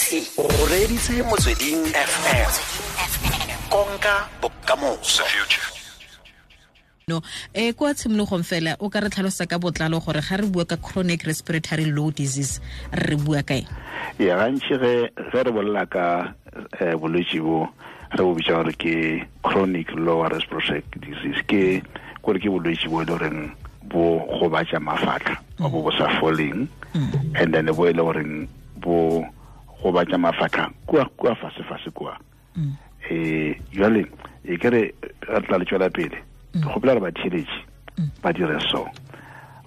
O reditse Motsweding FM, konka bokamoso. No, kwa tshimologong fela o ka re tlhalosa ka botlalo gore ga re bua ka chronic respiratory low disease re bua kae? Ya, gantši ge re bolela ka bolwetši bo re bo bitša gore ke chronic lower respiratory disease, ke gore ke bolwetši bo e le goreng bo gobatša mafatlha, bo bo sa foleng, and then bo e le goreng bo gobatša mafatlha kua fase fase kua. Jwale e ke re re tla le tšwela pele, ke kgopela gore batheeletši ba dire so,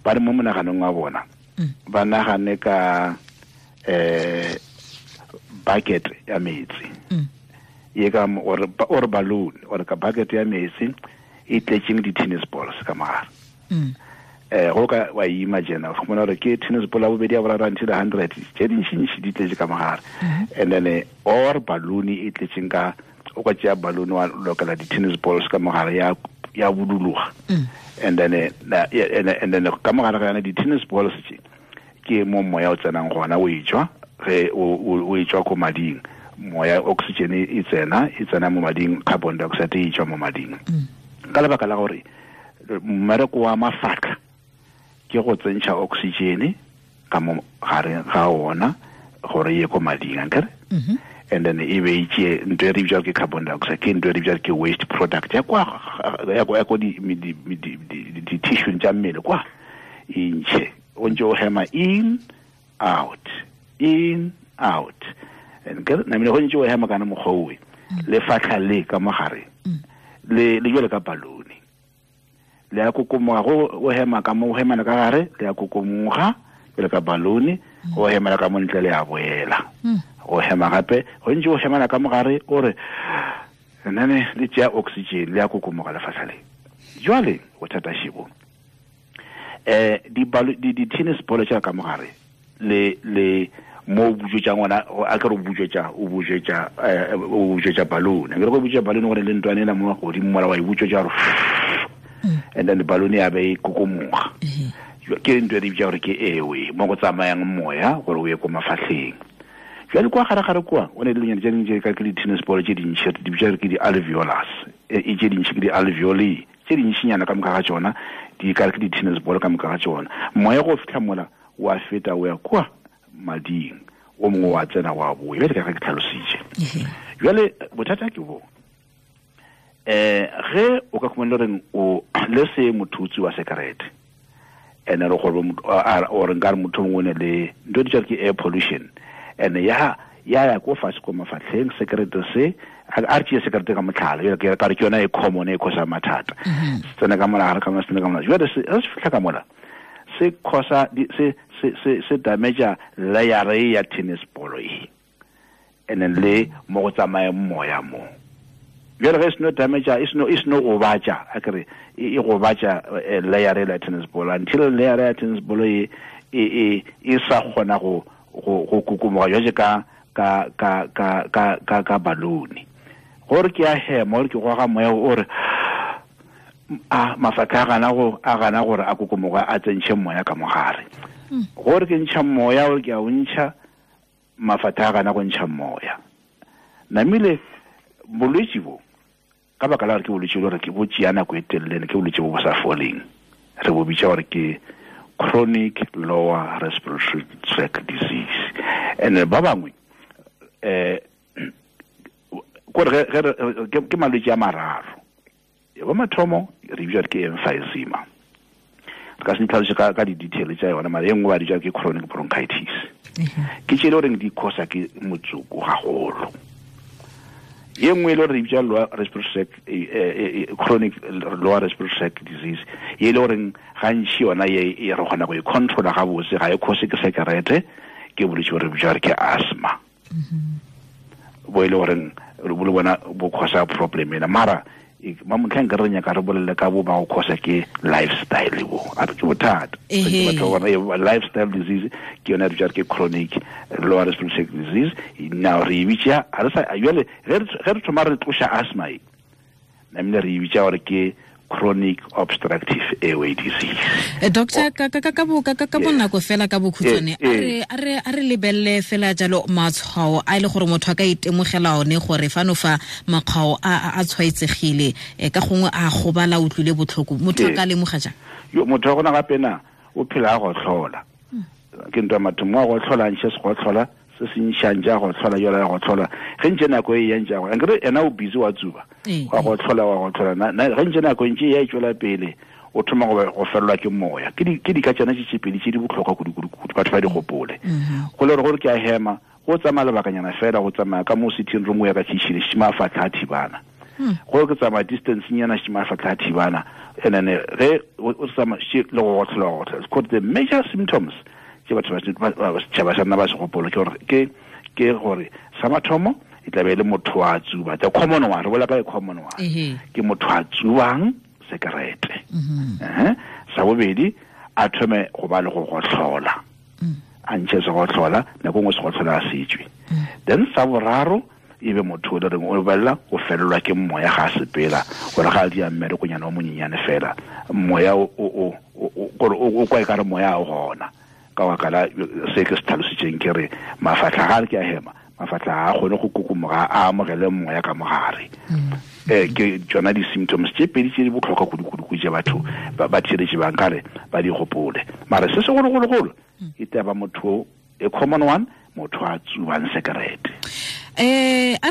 ba re mo monaganong wa bona ba nagane ka bucket ya metsi ye ka or balloon or ka bucket ya metsi e tletseng di-tennis balls ka mogare. Go ka wa imagine o fumana gore ke tennis ball ya bobedi, ya boraro, until 100, tše dintšintši di tletse ka mogare. And then or balloon e tletseng ka, o ka tšea balloon wa lokela di-tennis balls ka mogare, ya buduluga, and then ka mogare ga yona di-tennis balls tše ke mo moya o tsenang gona, o etswa ge o etswa ko mading, moya oxygen e tsena mo mading, carbon dioxide e tswa mo mading. Ka lebaka la gore mmereko wa mafatlha ke go tsentšha oxygen ka mo gare ga ona gore ye ko mading, ankere? And then e be itse ntho e re bitswa ke carbon dioxide, ke ntho e re bitswa ke waste product ya kwa ya ko di tissue tša mmele kwa, e ntšhe o ntse o hema in out, in out, and ke namile go ntse o hema kana mokgwa owe, lefatlha le ka mogare le jwale ka balloon le ya kokomoga. Go o hema ka mo, o hemana ka gare, le ya kokomoga jwale ka balloon. O hemela ka mo ntle, le ya boela. O hema gape, go ntse o hemana ka mogare, o re nene le tšea oxygen, le ya kokomoga lefatlha le. Jwale bothata šibo, di tennis ball tša ka mogare le mo butswetša ngwana, a ke re o butswetša balloon, ke re go butswetša balloon gore le ntwane ela mo godimo mola wa e butswetša gore, and then balloon ya be e kokomoga. Ke ntho e re bitša gore ke airway, mo go tsamayang moya gore o ye ko mafatlheng. Jwale kwa gare-gare kwa o ne dilonyana tse dingwe tse ka ke di-tennis ball tse dintšhi, di bitša gore ke di-alveolus, e tse dintšhi ke di-alveoli tse dintšinyana, ka moka ga tšona di kare ke di-tennis ball ka moka ga tšona. Moya go fitlha mola wa feta o ya kwa mading, o mongwe wa tsena, wa boya, bjale ka ge ke tlhalositše. Jwale bothata ke bo ge o ka khumana reng o le se mothutsi wa sekerete, ene re gore or nkare motho mongwe o ne le ntho di ke air pollution, and ya ko fatshe ko mafatlheng, sekerete se, a re tšee sekerete ka motlhala, ke ka re ke yona e common e causa mathata. Se tsena ka mola gare ka mola, se tsena ka mola. Jwale se se fitlha ka mola, se causa se damage layer e ya tennis ball e, and then le mo go tsamayang moya mo. Jwale ge e seno damage, e seno gobatša, a kere e gobatša layer e la tennis ball, until layer ya tennis ball e sa kgona go kokomoga jwale ka balloon. Gore ke a hema, gore ke goga moya, o re a mafatlha a gana gore a kokomoga, a tsentšhe moya ka mogare. Gore ke ntšha moya, gore ke a o ntšha, mafatlha a gana go ntšha moya. Namile bolwetši bo, ka baka la gore ke bolwetši bo gore ke bo tšea nako e telele, ke bolwetši bo bo sa foleng, re bo bitša gore ke chronic lower respiratory tract disease. And ba bangwe kore ge ke malwetši a mararo ya ba mathomo re bitša ke emphysema, re ka se ditlhaloše ka di-detail tša yona, mara e nngwe ba bitša ke chronic bronchitis, ke tše e le goreng di causa ke motsoko gagolo. Ye nngwe e le gore re bitša lower respiratory tract, chronic lower respiratory tract disease, ye e le goreng gantši yona ye e re kgona go e controla gabotse, ga e cause ke sekerete, ke bolwetši bo re bitša gore ke asthma, bo e le goreng bo le bona bo causa problem ena. Mara ma motlhang ke re nyaka re bolele ka bo ba go causa ke lifestyle, bo a re ke bothata. Batho ba bona lifestyle disease ke yona re bitša ke chronic lower respiratory tract disease. Now re e bitša, ga re sa jale ge re thoma re tloša asthma e, namile re e bitša gore ke chronic obstructive airway disease. Doctor, ka bonako fela ka bokhutshwane, a re lebelle fela jalo matshwao a ile gore motho a ka itemogela one gore fano fa makgwao a tshwaetsegile, ka gongwe a gobala utlwile botlhoko, motho a ka lemoga jang? Yo motho wa gona gape na o phela a go tlhola. Ke ntwa mathomo a go tlhola ntse se go tlhola se se ntšhang ja go tlhola yola ya go tlhola ge ntse nako e yang ja go nkere ena o busy wa tsuba wa go tlhola wa go tlhola na ge ntse nako e ntse ya tswela pele o thoma go fellwa ke moya ke di ka tsana tse pedi tse di botlhokwa kudu batho ba di gopole go le gore ke a hema go tsamaya lebakanyana fela go tsamaya ka mo sitting room ya ka kitchen shima fa tla thibana go ke tsamaya distance nyana shima fa tla thibana and then ge o tsamaya le go tlhola go tlhola the major symptoms ke batho ba setšhaba sa nna ba se gopolo ke gore sa mathomo e tla be le motho wa tsuba, the common one, re bolela ka e common one, ke motho a tsubang sekerete. Sa bobedi a thome go ba le go gotlhola, a ntšhe se gotlhola nako nngwe se gotlhola a setswe. Then sa boraro e be motho o le reng o belela o felelwa ke moya ga a sepela gore ga a dia mmerekonyana o monyenyane fela moya o kwa e ka re moya o gona. Ka baka se ke se tlhalositseng ke re mafatlha ga ke a hema mafatlha a kgone go kokomoga a amogele moya ka mogare. Ke tsona di-symptoms tse pedi tse di botlhokwa kudu-kudu tse batho ba tsheletse bang kare ba di gopole. Mara se segologologolo e taba motho a common one, motho a tsubang sekerete. A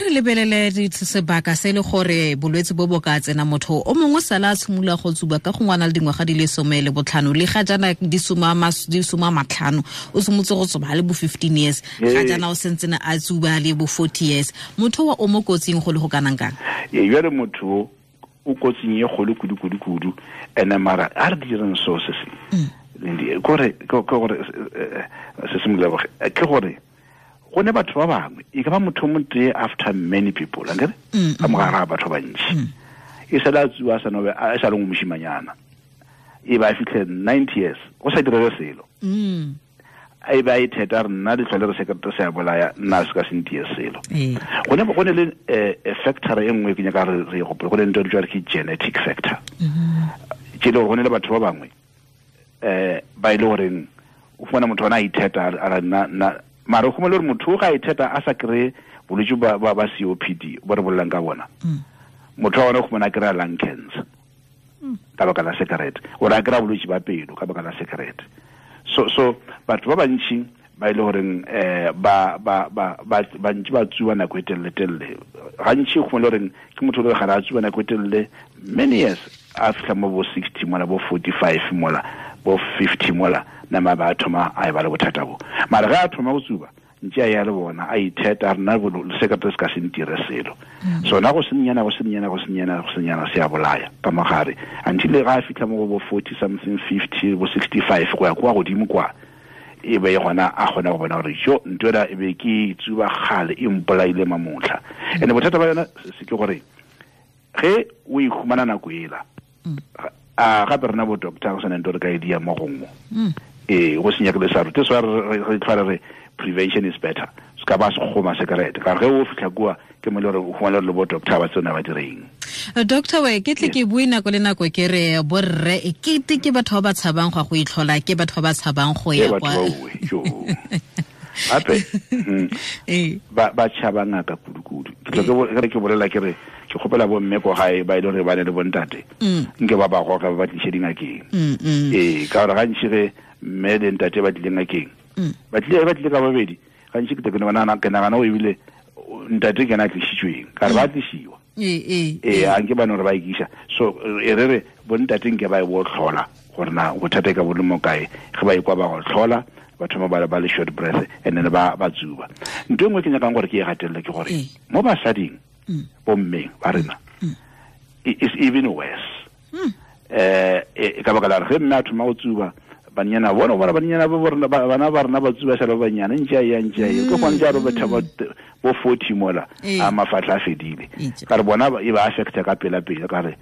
re lebelele sebaka se le gore bolwetse bo bo ka tsena motho o mongwe sala a tshimolola go tsuba ka gongwe a na le dingwaga di le 15 le ga jaana di 15 o simolotse go tsuba le bo 15 years ga jaana o sentsene a tsuba le bo 40 years, motho wa o mo kotsing go le go kanang kang? Jale motho o kotsing e kgolo kudu-kudu-kudu ene mara a re direng so se se ke gore se simolola ke gore go ne batho ba bangwe e ka ba motho o motee after many people ankere ka mogare ga batho ba bantši e sala a tsuba a sa nobe a sa le moshimanyana e ba fitlhe 90 years go sa direge selo e ba e theta re nna ditlhole re sekerete se a bolaya nna se ka se ntie selo. Go ne le factor e nngwe ke nyaka re gopole, go ne ntho e bitswa ke genetic factor ke le gore go ne le batho ba bangwe ba ile goreng o fumana motho ona a itheta a re nna mara o fumana gore motho ga itheta a sa kry bolwetse ba COPD bo re bolelang ka bona, motho wa ona o fumana a kry-a lung cancer ka baka la sekerete, ore a kry-a bolwetse ba pelo ka baka la sekerete. So batho ba bantši ba ile goreng ba bantši ba tsuba nako e telele-telele gantši o fumana goreng ke motho o le gare a tsuba nako e telele many years a fitlha mo bo 60 mola bo 45 mola bo 50 mola nama ba thoma a e ba le bothata bo. Mara ga a thoma go tsuba ntse a ya le bona a itheta rena sekerete se ka se ntire selo. So na go senyana go senyana go senyana go senyana se a bolaya ka mogare until ga a fitlha mo go bo 40 something 50 bo 65 go ya kwa godimo kwa e be gona a kgona go bona gore jo ntho ena e be ke tsuba kgale e mpolaile mamotlha. And bothata ba yona se ke gore ge o e humana nako ela a gape rena bo doctor go sena ntho re ka e dia mo gongwe go senya ke le sa rute so re tlhware re prevention is better se ka ba se goma sekerete ka ge o fitlha kua ke mo le gore o humana le bo doctor ba tsona ba direng. Doctor we ke tle ke bue nako le nako ke re borre e kete ke batho ba ba tshabang go itlhola, ke batho ba ba tshabang go ya kwa gape ba tšhaba ngaka kudu-kudu. Ke tle ke bolela ke re ke kgopela bomme ko gae ba e le gore ba ne le bontate nke ba ba goka ba ba tliše dingakeng. Ka gore gantši ge mme le ntate ba tlile ngakeng ba tlile ka babedi gantši ke nagana o ebile ntate ke ena a tlišitšweng ka re ba tlišiwa a nke ba ne gore ba ikiša. So e re re bontate nke ba e bo tlhola gore na bothata e ka bo le mo kae ge ba ikwa ba go tlhola ba thoma ba le short breath and then ba tsuba. Ntho e nngwe ke nyakang gore ke e gatelele ke gore mo basading bommeng ba rena is even worse. Ka baka la gore ge mme a thoma go tsuba banyana bona bona banyana ba rena bana ba rena ba tsuba sa ba banyana ntse ya ntse ya ke gone ja robetha bo 40 mola a mafatla a fedile ka re bona e ba affecta ka pela pele ka re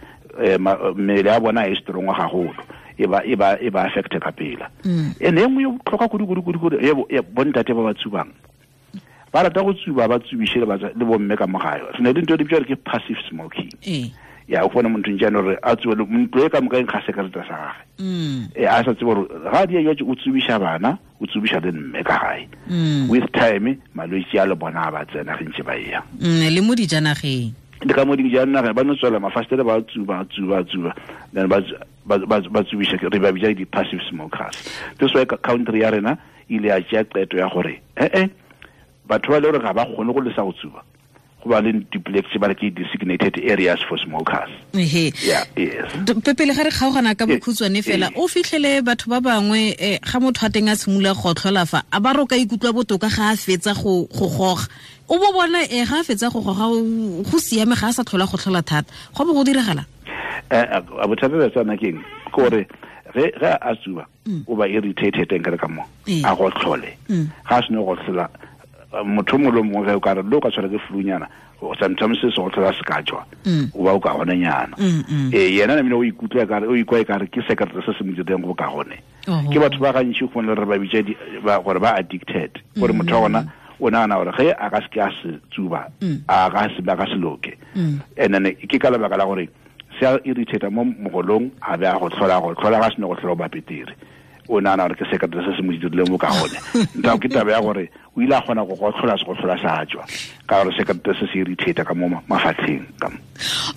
mmele ya bona e strong gagolo e ba affecta ka pela. Ene e nngwe e botlhokwa kudu-kudu-kudu bontate ba ba tsubang Ba rata go tsuba ba tsubishe le bomme ka mo gae. Re ne le ntho e di bitswa ke passive smoking. Ya o bona motho njane gore a tsube ntlo e ka moka e nkga sekerete sa gage. A sa tsebe gore ga di ya o tsubisha bana, o tsubisha le mme ka gae. With time malwetse a le bona ba tsena ge ntse ba ya. Le mo dijanageng. Le ka mo dijanageng ba no tswela mafastere ba tsuba then ba tsubisha re ba bitsa di passive smokers. This way country ya rena ile ya tšea qeto ya gore batho ba le gore ga ba kgone go lesa go tsuba. Go ba le duplex ba re ke designated areas for smokers. Yeah, yes. Pele ga re kgaogana ka bokhutshwane fela, o fitlhele batho ba bangwe ga motho a teng a simolola go tlhola fa a ba roka ikutlwa botoka ga a fetsa go goga. O bo bona ga a fetsa go goga go siame ga a sa tlhola go tlhola thata. Go bo go diragala? A bothata ba tsana keng gore ge a tsuba o ba irritated ka re ka mo a go tlhole. Ga a sene go tlhola motho mongwe le mongwe o ka re le o ka tshwara ke flunyana sometimes se go tlhola se ka tswa o ba o ka gone nyana. Yena namile o ikutlwa ka re o ikwa e ka re ke sekerete se se mo direng go ka gone. Ke batho ba gantši go le re ba bitsa gore ba addicted gore motho wa gona o nagana gore ge a ka se ke a se tsuba a ka se ba ka se loke. And then ke ka lebaka la gore se a irritate mo mogolong a be a go tlhola ga se ne go tlhola ba petere. O nagana gore ke sekerete se se mo dirileng bo ka gone. Nta ke taba ya gore o ile a kgona go tlhola se go tlhola sa tswa ka gore sekerete se se irritate ka mo mafatlheng ka mo.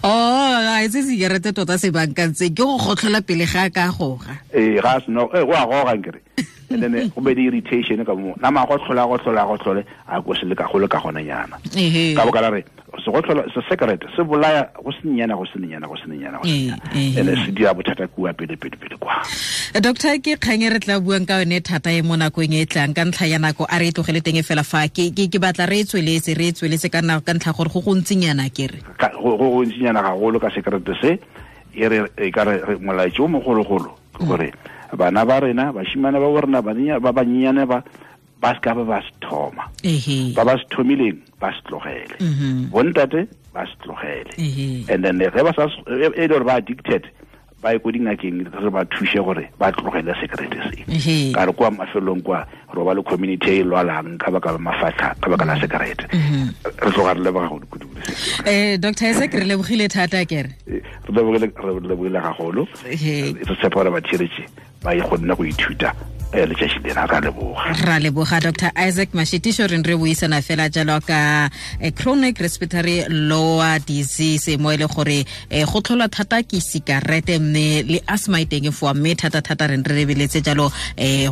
A itse sekerete tota se bankantse ke go gotlhola pele ga ka goga. Ga se no go a goga nkere. And then go be di irritation ka mo nama go tlhola a go se le ka go le ka gone nyana. Ka boka la re se go tlhola se sekerete se bolaya go senyana and se dira bothata kua pele kwa. Doctor ke kgang e re tla buang ka yone thata e mo nakong e tlang ka ntlha ya nako a re e tlogele teng fela fa ke batla re e tsweletse ka nako ka ntlha gore go gontsinyana ke re go gontsinyana gagolo ka sekerete se e re e ka re molaetso o mogologolo ke gore bana ba rena bashimane ba borena ba banyenyane ba se ka ba se thoma. Ba ba se thomileng ba se tlogele. Bontate ba se tlogele. And then ge ba sa e le gore ba addicted ba ye ko dingakeng re ba thuse gore ba tlogele sekerete se. Ka re kwa mafelong kwa re ba le community e lwalang ka baka la mafatlha ka baka la sekerete. Re tloga re leboga go kudu. Dr. Isaac re lebogile thata kere. Re lebogile gagolo. Re tshepa gore ba tshiretše ba e kgonne go ithuta letšatši lena. Ra leboga. Ra leboga Dr. Isaac Mashitisho re buisana fela jalo ka chronic respiratory lower disease mo ile gore go tlhola thata ke sikarete mme le asthma e teng fo mme thata re lebeletse jalo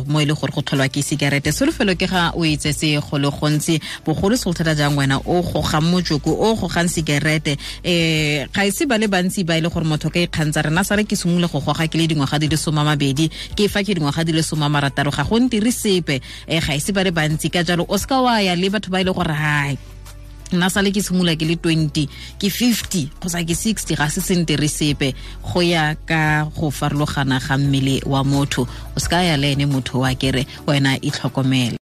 mo ile gore go tlholwa ke sikarete. Solofelo ke ga o itse se go le gontsi bogolo se thata jang wena o gogang motsoko o gogang sikarete ga ise ba le bantsi ba ile gore motho ka ikgantsa rena sare ke simole go goga ke le dingwaga di le 20 ke fa ke dingwaga di le 30 ga go ntire sepe ga ise ba le bantsi ka jalo o ska wa ya le batho ba ile gore hai nna sale ke simolola ke le 20 ke 50 kgotsa ke 60 ga se sentere sepe go ya ka go farologana ga mmele wa motho o ska ya le ene motho wa kere wena itlhokomele.